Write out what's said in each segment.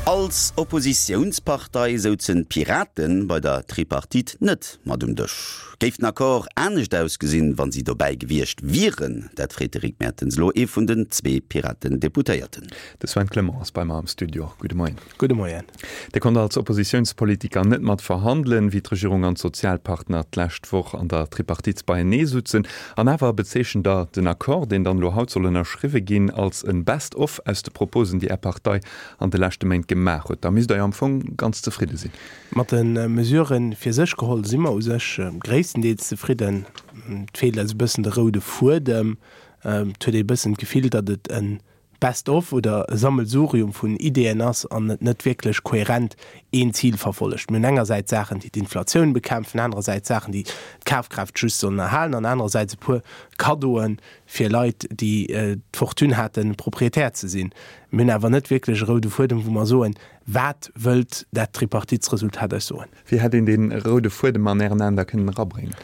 Als Oppositiounspartei souzen d'Piraten bei der Tripartite net mat um Dësch. Géif den Accord anescht ausgesinn, wann si dobäi gewiescht wieren? Dat freet de Rick Mertens elo ee vun den zwee Piraten-Deputéierten. De Sven Clement ass bei mer am Studio. Gudde Moien. Gudde Moien. Dir konnt als Oppositiounspolitiker net mat verhandelen, wéi d'Regierung an d'Sozialpartner d'lescht Woch an der Tripartite beienee sutzen. An awer bezeechent Der den Accord, deen dann elo haut soll ënnerschriwwe ginn, als e Best of aus de Proposen, déi Är Partei an de leschte Méint gemaach huet. Da misst Der jo am Fong ganz zefridde sinn. Mat de Mesurë fir sech geholl si mer u sech gréisstendeels zefridden. Et feelt eis e bëssen de roude Fuedem. Et huet ee e bëssen d'Gefill, datt et e Best of oder e Sammelsurium vun Ideeën ass an et net wierklech kohärent een Zil verfollegt. Mir hunn engersäits Saachen, déi d'Inflatioun bekämpfen, anerersäits Saachen, déi d'Kafkraaft just sollen erhalen an anerersäits e puer Kaddoe fir Leit, déi d'Fortune haten, Proprietär ze sinn. Mir hunn awer net wierklech e roude Fuedem, wou mer soen, Wat wëllt dat Tripartitsresultat eis soen? Wéi hätt een dee roude Fuedem an Ären Aen da kënnen erabréngen?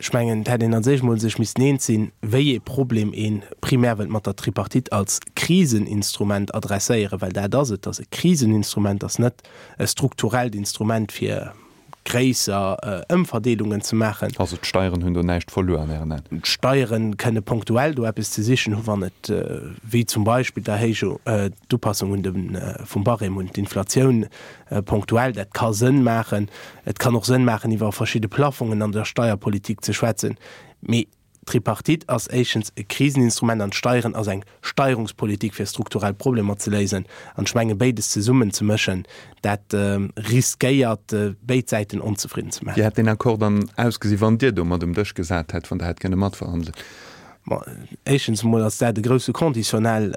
Ech mengen, et hätt een als éischt emol sech missten eens sinn, wéi ee Problem ee primär wëllt mat der Tripartite als Kriseninstrument adresséieren, well dat ass et, et ass e Kriseninstrument, et ass net e strukturellt Instrument, fir gréisser Ëmverdeelungen ze maachen. Also d'Steieren hunn do näischt verluer an Ären Aen? D'Steiere kënne punktuell do eppes ze sichen hu wann et, wéi zum Beispill d'Erhéijung, d'Upassung un de vum Barème un d'Inflatioun punktuell, dat ka Sënn maachen. Et kann och Sënn maachen iwwer verschidde Plafongen an der Steierpolitik ze schwätzen. Mee D'Tripartite ass éischtens e Kriseninstrument an d'Steieren ass eng Steierungspolitik fir strukturell Problemer ze léisen. An ech menge béides zesummen ze mëschen, dat riskéiert béid Säiten onzefridden ze maachen. Wéi hätt deen Accord dann ausgesi wann Dir do mat um Dësch gesat hätt, wann Der hätt kënne matverhandelen? Bon, éischtens emol ass dat e grousse Conditionnel.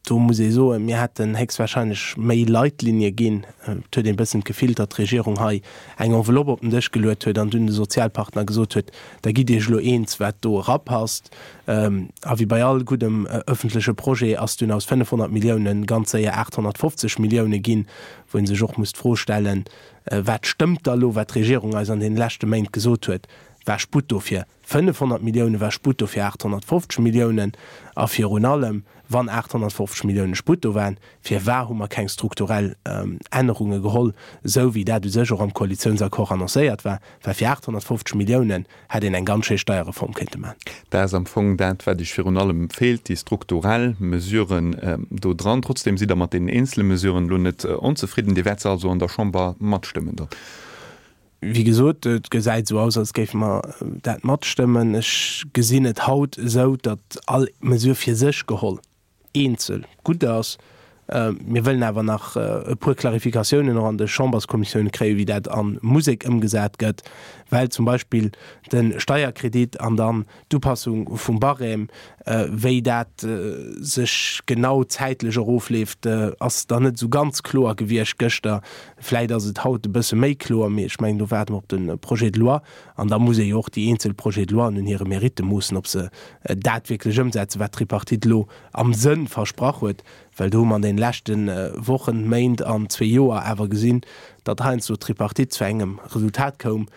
Do muss ee soen, mir hätten héchstwahrscheinlech méi Leitlinie ginn. Et huet een e bëssen d'Gefill, datt d'Regierung hei eng Enveloppe op den Dësch geluet huet an dunn de Sozialpartner gesot huet, da gitt Iech elo eens, wat do erapasst. A wéi bei all guddem ëffentleche Projet ass dunn aus 500 Milliounen ganz séier 850 Millioune ginn, wou ee sech och muss d'Fro stellen, Wat stëmmt da elo, wat d'Regierung eis an deene leschte Méint gesot huet? War Sputt dofir? 500 Millioune war Sputt do fir 850 Milliounen. A virun allem, wann 850 Millioune Sputt do waren, firwar hu mer keng strukturell Ännerunge geholl, esou wéi dat u sech och am Koalitiounsaccord annoncéiert war? Well fir 850 Milliounen hätt een eng ganz schéi Steierreform kéinte maachen. Dat ass am Fong dat, wat Iech virun allem feelt, déi strukturell Mesuren do dran. Trotzdem sidd Der mat deenen eenzele Mesuren elo net onzefridden. Dir wäert se also an der Chamber matstëmmen dann? Wéi gesot, et gesäit esou aus, als géife mer dat matstëmmen. Ech gesinn et haut esou, datt all Mesure fir sech geholl eenzel gutt ass. Mir wëllen awer nach e puer Klarifikatiounen och an de Chamberskommissioune kréien, wéi dat a Musek ëmgesat gëtt, well zum Beispill de Steierkredit an dann D'Upassung vum Barème, wéi dat sech genau zäitlech erofleeft, ass dann net esou ganz kloer gewiescht gëschter. Vläit ass et haut e bësse méi kloer, mee ech mengen, do waarde mer op de Projet de loi. An da muss ee jo och déi eenzel Projets de loien un hire Meritte moossen, ob se dat wierklech ëmsetzen, wat d'Tripartite elo am Sënn versprach huet. Well do hu mer an deene leschte Wochen, Méint an zwee Joer awer gesinn, datt heiansdo d'Tripartite zu engem Resultat koum,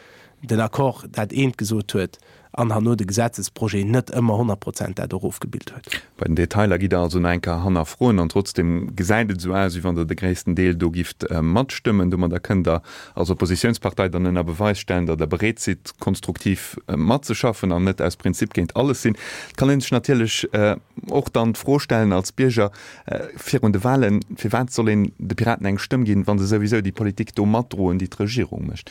den Accord dat eent gesot huet an herno de Gesetzesprojet net ëmmer 100 Prozent dat och ofgebilt huet. Bei den Detailer gitt Der also nach eng Kéier hannerfroen an trotzdem gesäit et esou aus, wéi wann Der de gréissten Deel do gifft matstëmmen. Domadder kënnt Der als Oppositiounspartei dann ënner Beweis stellen, datt Der bereet sidd, konstruktiv matzeschaffen an net aus Prinzip géint alles sinn. Et kann ee sech natierlech och dann d'Fro stellen als Bierger virun de Wahlen, Firwat soll een de Piraten eng Stëmm ginn, wa se souwisou déi Politik do matdroen, déi d'Regierung mécht?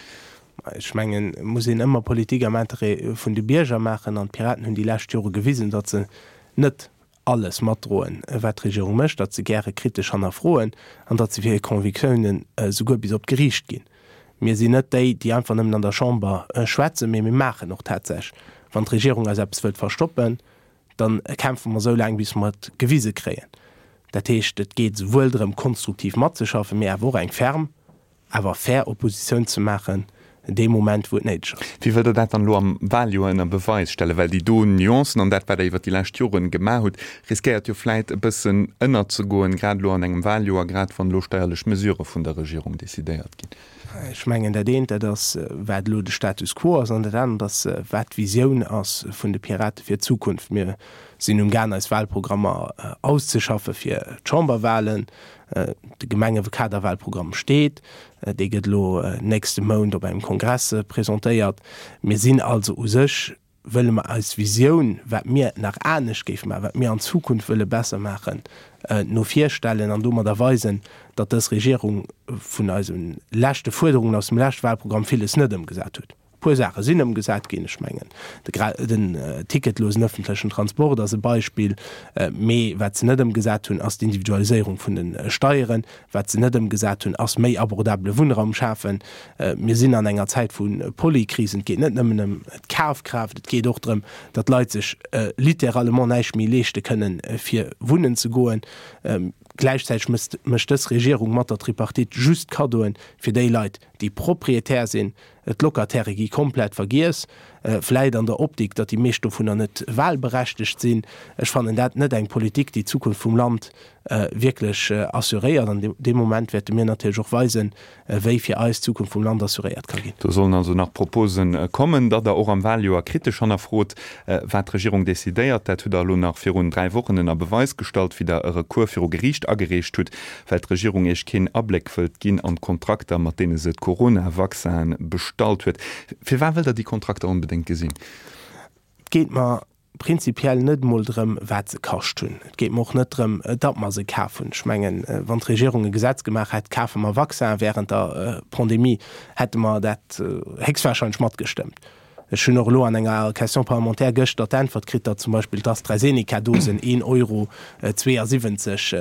Ech mengen, et muss een ëmmer Politik am Interêt vun de Bierger maachen. An d'Piraten hunn déi lescht Jore gewisen, datt se net alles matdroen, wat d'Regierung mécht, datt se gäre kritesch hannerfroen an datt se fir hir Convictiounen souguer bis op d'Geriicht ginn. Mir sinn net déi, déi einfach nëmmen an der Chamber schwätzen, mee mir maachen och tatsächlech. Wann d'Regierung eis eppes wëllt verstoppen, da kämpfe mer esou laang, bis mer et gewise kréien. Dat heescht, et geet esouwuel drëm, konstruktiv matzeschaffen, mee awer och eng ferm awer fair Oppositioun ze maachen dee Moment wou et néideg ass. Wéi wëllt Der dat dann elo am Wahljoer ënner Beweis stellen? Well déi do Nuancen an dat, wat Der iwwert déi lescht Joren gemaach hutt, riskéiert jo vläit e bëssen ënnerzegoen, grad elo an engem Wahljoer, grad wann elo steierlech Mesurë vun der Regierung decidéiert ginn. Ech mengen, dat eent, dat ass, wat elo de Status quo ass, an dat anert ass, wat d'Visioun ass vun de Pirate fir d'Zukunft. Mir. sinn um Gaang eis Wahlprogrammer auszeschaffe fir d'Chamberwahlen. De Gemengekaderwahlprogramm steet, dee gëtt elo nächste Mount op engem Kongress presentéiert. Mir sinn also u sech, wëlle mer eis Visioun, wat mir nach anescht géife maachen, wat mir an Zukunft wëlle besser maachen, no vir stellen an domadder weisen, datt dës Regierung vun eise leschte Fuerderungen aus dem leschte Wahlprogramm villes net ëmgesat huet. E puer Saache sinn ëmgesat ginn, ech mengen den ticketlosen ëffentlechen Transport ass e Beispill, mee wat se net ëmgesat hunn, ass d'Individualiséierung vun de Steieren. Wat se net ëmgesat hunn, ass méi abordabele Wunnraum schafen. Mir sinn an enger Zäit vu Polykrisen. Et geet net nëmmen ëm d'Kafkraaft, et geet och drëm, datt d'Leit sech littéralement näischt méi leeschte kënnen, fir wunnen ze goen. Gläichzäiteg mécht dës Regierung mat der Tripartite just Kaddoen fir déi Leit, déi Proprietär sinn. D'Locatairë gi komplett vergiess, vläit an der Optik, datt déi meescht dovunner net wahlberechtegt sinn. Ech fannen dat net eng Politik, déi d'Zukunft vum Land wierklech assuréiert. An dee Moment wäerte mir natierlech och weisen, wéi fir eis d'Zukunft vum Land assuréiert ka ginn. Do sollen also nach Propose kommen, datt Der och am Wahljoer kritesch hannerfrot, wat d'Regierung decidéiert. Dat hutt Der elo nach virun 3 Wochen ënner Beweis gestallt, wéi Der e Recours viru Geriicht agereecht hutt, well d'Regierung Iech keen Abléck wëllt ginn an d'Kontrakter, mat deene se d'Corona-Vaccinen bestallt huet. Firwat wëllt Der déi Kontrakter onbedéngt gesinn? Et geet mer prinzipiell net emol drëm, wat se kascht hunn. Et geet mer och net drëm, datt mer se kaf hunn. Ech mengen, wann d'Regierung e Gesetz gemaach hätt, kafe mer Vaccinen während der Pandemie, hätte mer dat héchstwahrscheinlech matgestëmmt. Ech hunn och elo an enger Question parlementaire gëschter d'Äntwert kritt, datt zum Beispill d'AstraZeneca-Dosen een Euro 72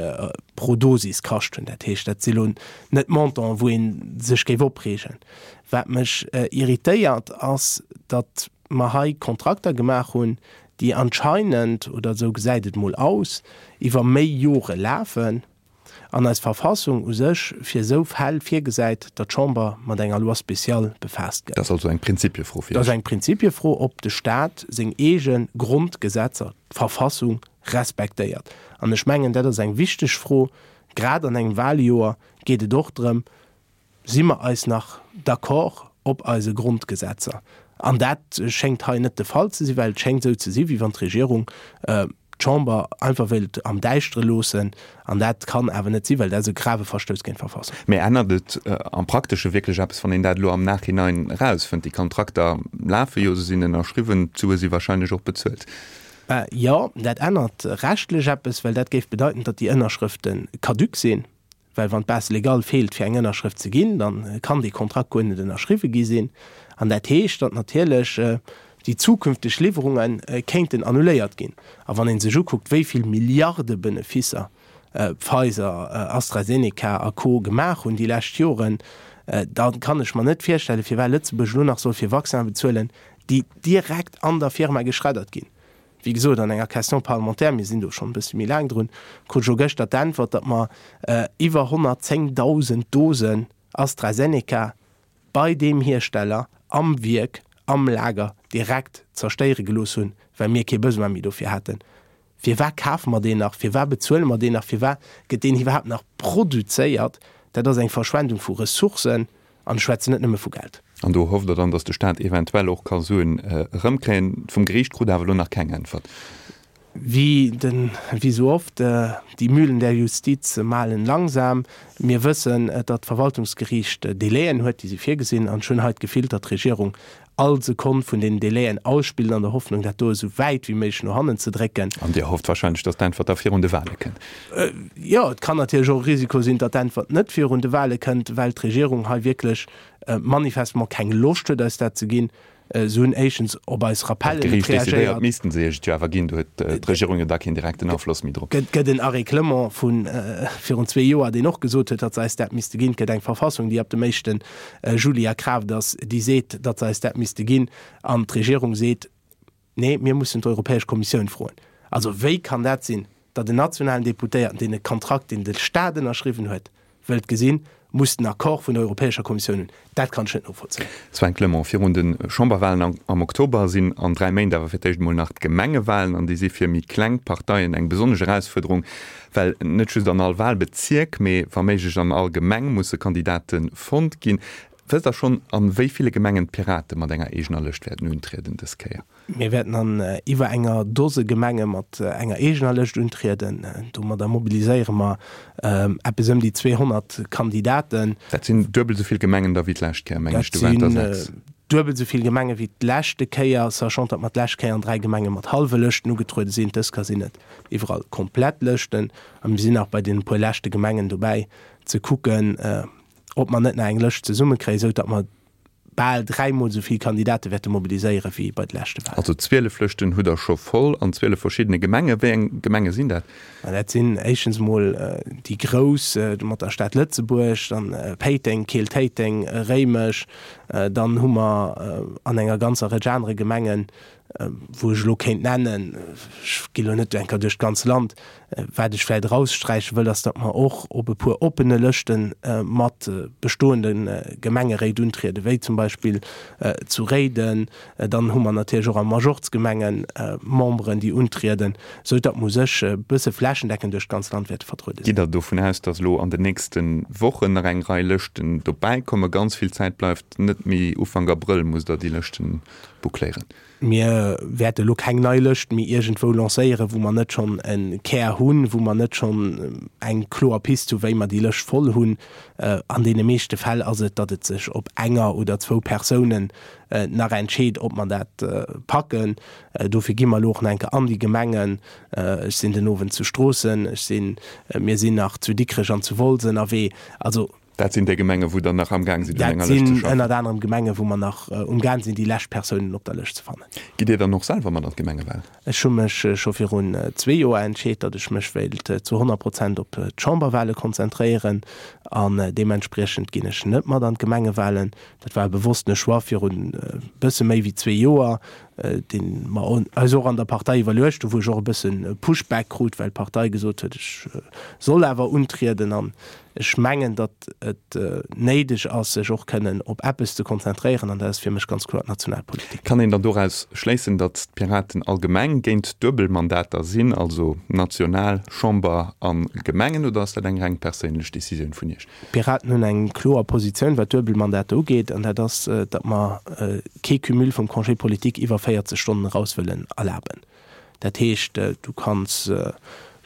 pro Dosis kascht hunn. Dat heescht, dat si lo net Montanten, wou ee sech géif opreegen. Wat mech irritéiert, ass, datt mer hei Kontrakter gemaach hunn, déi anscheinend, oder esou gesäit et mol aus, iwwer méi Jore lafen. An eis Verfassung u sech fir esou Fäll virgesäit, datt d'Chamber mat enger Loi spéciale befaasst gëtt. Dat ass also eng Prinzipiefro fir Dat ass Iech? eng Prinzipiefro, ob de Staat seng eege Grondgesetzer, d'Verfassung, respektéiert. An ech mengen, dat ass eng wichteg Fro. Grad an engem Wahljoer geet et och drëm, Si mer eis nach d'accord op eise Grondgesetzer? An dat schéngt hei net de Fall ze sinn, well et schéngt esou ze sinn, wéi wann d'Regierung d'Chamber einfach wéilt am Däischtere loossen. An dat kann awer net sinn, well dat ass e grave Verstouss géint d'Verfassung. Mee ännert et am Praktesche wierklech eppes, wann een dat elo am Nachhinein erausfënnt? Déi Kontrakter lafe jo, se sinn ënnerschriwwen, d'Sue si wahrscheinlech och bezuelt. Jo, dat ännert rechtlech eppes, well dat géif bedeiten, datt déi Ënnerschrëfte caduc sinn. Well wann d'Base légale feelt fir eng Ënnerschrëft ze ginn, da kann dee Kontrakt guer net ënnerschriwwe gi sinn. An dat heescht, datt natierlech déi zukünfteg Liwwerunge kéinten annuléiert ginn. A wann ee sech ukuckt, wéi vill Milliardebenefisser Pfizer, AstraZeneca a Co. Gemaach hunn déi lescht Joren, da kann ech mer net virstellen, firwat Lëtzebuerg elo nach soll fir Vaccine bezuelen, déi direkt an der Firma geschreddert ginn. Wéi gesot, an enger Question parlementaire, mir sinn do schonn e bësse méi laang drun, krut ech elo gëschter d'Äntwert, datt mer iwwer 110.000 Dosen AstraZeneca bei deem Hiersteller am Wierk, am Lager direkt zerstéiere gelooss hunn, well mir kee Besoin méi dofir haten. Firwat kafe mer deen nach? Firwat bezuele mer deen nach? Firwat gëtt deen iwwerhaapt nach produzéiert? Dat ass eng Verschwendung vu Ressourcen. An ech schwätzen net nëmme vu Geld. An do hofft Der dann, datt de Staat eventuell och ka Suen erëmkréien. Vum Geriicht krut Der awer elo nach keng Äntwert. Wéi den, wéi esou oft, die Mühlen der Justiz mahlen langsam. Mir wëssen, datt d'Verwaltungsgeriicht Délaiën huet, déi si virgesinn. An ech hunn hei d'Gefill, datt d'Regierung all Sekonn vun deenen Délaiën ausspillt an der Hoffnung, dat do esou wäit wéi méiglech no hannen ze drécken. An Dir hofft wahrscheinlech, datt d'Äntwert da virun de Wahle kënnt? Jo, et kann natierlech och e Risiko sinn, datt d'Äntwert net virun de Wahle kënnt, well d'Regierung hei wierklech manifestement keng Loscht huet, eis dat ze ginn. Se hunn éischtens op eis Rappellen net reagéiert. Wann d'Geriicht decidéiert, missten se Iech et jo awer ginn. Do huet d'Regierung jo da keen direkten Afloss méi drop. Et gëtt en Arrêt Clement vu virun zwee Joer, deen och gesot huet, datt se eis dat misste ginn. Et gëtt eng Verfassung, déi ab dem éischte Juli a Kraaft ass, déi seet, datt se eis dat misste ginn. An d'Regierung seet, Nee, mir mussen d'Europäesch Kommissioun froen. Also wéi kann dat sinn, datt en nationalen Deputéierten, deen e Kontrakt, deen de Staat ënnerschriwwen huet, wëllt gesinn, muss den Accord vun der Europäescher Kommissioun hunn? Dat kann ech net novollzéien. Sven Clement, Virun de Chamberwahlen am Oktober sinn an 3 Méint awer fir d'éischt emol nach d'Gemengewahlen an déi si fir méi kleng Parteien eng besonnesch Erausfuerderung, well net just an all Wahlbezierk, mee wa méiglech an all Gemeng musse Kandidate fonnt ginn. Wësst Der schonn, a wéi ville Gemengen d'Pirate mat enger eegener Lëscht wäerten untrieden dës Kéier? Mir wäerten an iwwer enger Dose Gemenge mat enger eegener Lëscht untrieden. Domadder mobiliséiere mer eppes ëm déi 200 Kandidaten. Dat sinn duebel esou vill Gemengen da wéi d'lescht Kéier, mengen ech. Do waren der 6. Duebel esou vill Gemenge wéi d'leschte Kéier, sachant datt mer d'lescht Kéier an 3 Gemenge mat hallwe Lëschten ugetruede sinn. Dës Kéier sinn et iwwerall komplett Lëschten. A mir sinn nach bei deene puer leschte Gemengen dobäi ze kucken, ob mer net nach eng Lëscht zesummekréien, esou datt mer bal dräimol esou vill Kandidate wäerte mobiliséiere wéi bei de leschte Wahlen. Also 12 Lëschten hutt Der scho voll an 12 verschiddene Gemenge. Wéi eng Gemenge sinn dat? Ma dat sinn éischtens emol déi grouss mat der Stad Lëtzebuerg, dann Péiteng, Keel, Téiteng, Réimech. Dann hu mer an enger ganzer Rëtsch anere Gemengen, wou ech elo kéint nennen, ech ginn elo net eng Kéier duerch d'ganz Land, wat ech vläicht eraussträiche wëll, ass, datt mer och op e puer oppene Lëschte mat bestoende Gemengeréit untrieden, wéi zum Beispill zu Réiden. Dann hu mer natierlech och a Majorzgemenge Memberen, déi untrieden, esou datt mer u sech e bësse flächendeckend duerch d'ganz Land wäerte vertruede sinn. Gitt Der dovun aus, datt elo an den nächste Wochen nach eng Rei Lëschten dobäikommen? Ganz vill Zäit bleift net méi. Ufank Abrëll musst Der déi Lëschten boucléieren. Mir wäerte elo keng nei Lëscht méi iergendwou lancéieren, wou mer net schonn e Kär hunn, wou mer net schonn eng kloer Pist hu wéi mer déi Lëscht voll hunn. An deene meeschte Fäll ass et, datt et sech op enger oder zwou Persounen nach entscheet, ob mer dat packen. Dofir gi mer elo och nach eng Kéier an déi Gemengen. Ech sinn den Owend zu Stroossen, ech sinn, mir sinn nach zu Dikrech an zu Wolz ënnerwee. Also. Dat sinn déi Gemengen, wou Der nach amgaang sidd, un enger Lëscht ze schaffen? Dat sinn ënnert anerem Gemengen, wou mer nach umgaang sinn, déi lescht Persounen op der Lëscht ze fannen. Gitt Dir dann och selwer mat an d'Gemengewal? Ech hu mech scho virun zwee Joer entscheet, datt ech mech wéilt zu 100 Prozent op d'Chamberwale konzentréieren an deementspriechend ginn ech net mat an d'Gemengewalen. Dat war e bewosstene Choix virun e bësse méi wéi zwee Joer, dee mer eis och an der Partei iwwerluecht hu, wou ech och e bësse Pushback krut, well d'Partei gesot huet, ech soll awer untrieden. An ech mengen, datt et néideg ass, sech och kënnen op eppes ze konzentréieren, an dat ass fir mech ganz kloer d'Nationalpolitik. Kann een dann doraus schléissen, datt d'Piraten allgemeng géint Duebelmandater sinn, also national, Chamber a Gemengen, oder ass dat eng reng perséinlech Decisioun vun Iech? D'Piraten hunn eng kloer Positioun, wat Duebelmandater ugeet, an dat ass, datt mer kee Cumul vum Congé politique iwwer 40 Stonnen eraus wëllen erlaben. Dat heescht, du kanns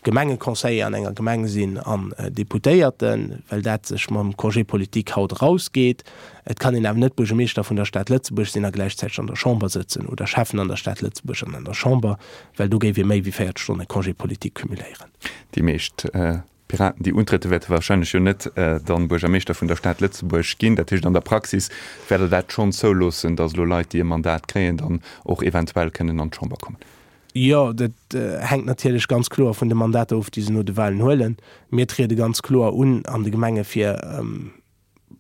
Gemengeconseiller an enger Gemeng sinn an Deputéierten, well dat sech mam Congé politique haut erausgeet. Et kann een awer net Buergermeeschter vun der Stad Lëtzebuerg sinn a gläichzäiteg an der Chamber sëtzen oder Schäffen an der Stad Lëtzebuerg an an der Chamber, well do géif ee méi wéi 40 Stonne Congé politique cumuléieren. Déi meescht D'Piraten, déi untriede wäerte warscheinlech jo net dann Buergermeeschter vun der Stad Lëtzebuerg ginn. Dat heescht, an der Praxis wäert Der dat schonn zouloossen, datt elo Leit, déi e Mandat kréien, dann och eventuell kënnen an d'Chamber kommen? Jo, dat hänkt natierlech ganz kloer vun de Mandater of, déi se no de Wahlen huelen. Mir triede ganz kloer un an de Gemenge fir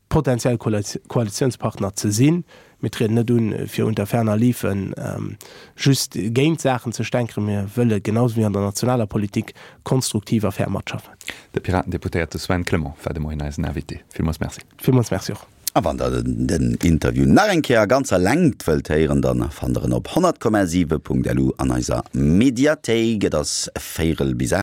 potenziell Koalitiounspartner ze sinn. Mir trieden net un, fir unter ferner liefen just géint Saachen ze stänkeren. Mir wëlle genau sou wéi an der nationaler Politik konstruktiv a fair matschaffen. De Piraten-Deputéierte Sven Clement war de Moien eisen Invité. Villmools Merci. Villmools Merci och. A wann der den Interview nach eng Kéier a ganzer Längt wëllt héieren, dann fannt der en op 100,7.lu an eiser Mediathéik. Et ass véirel bis 8.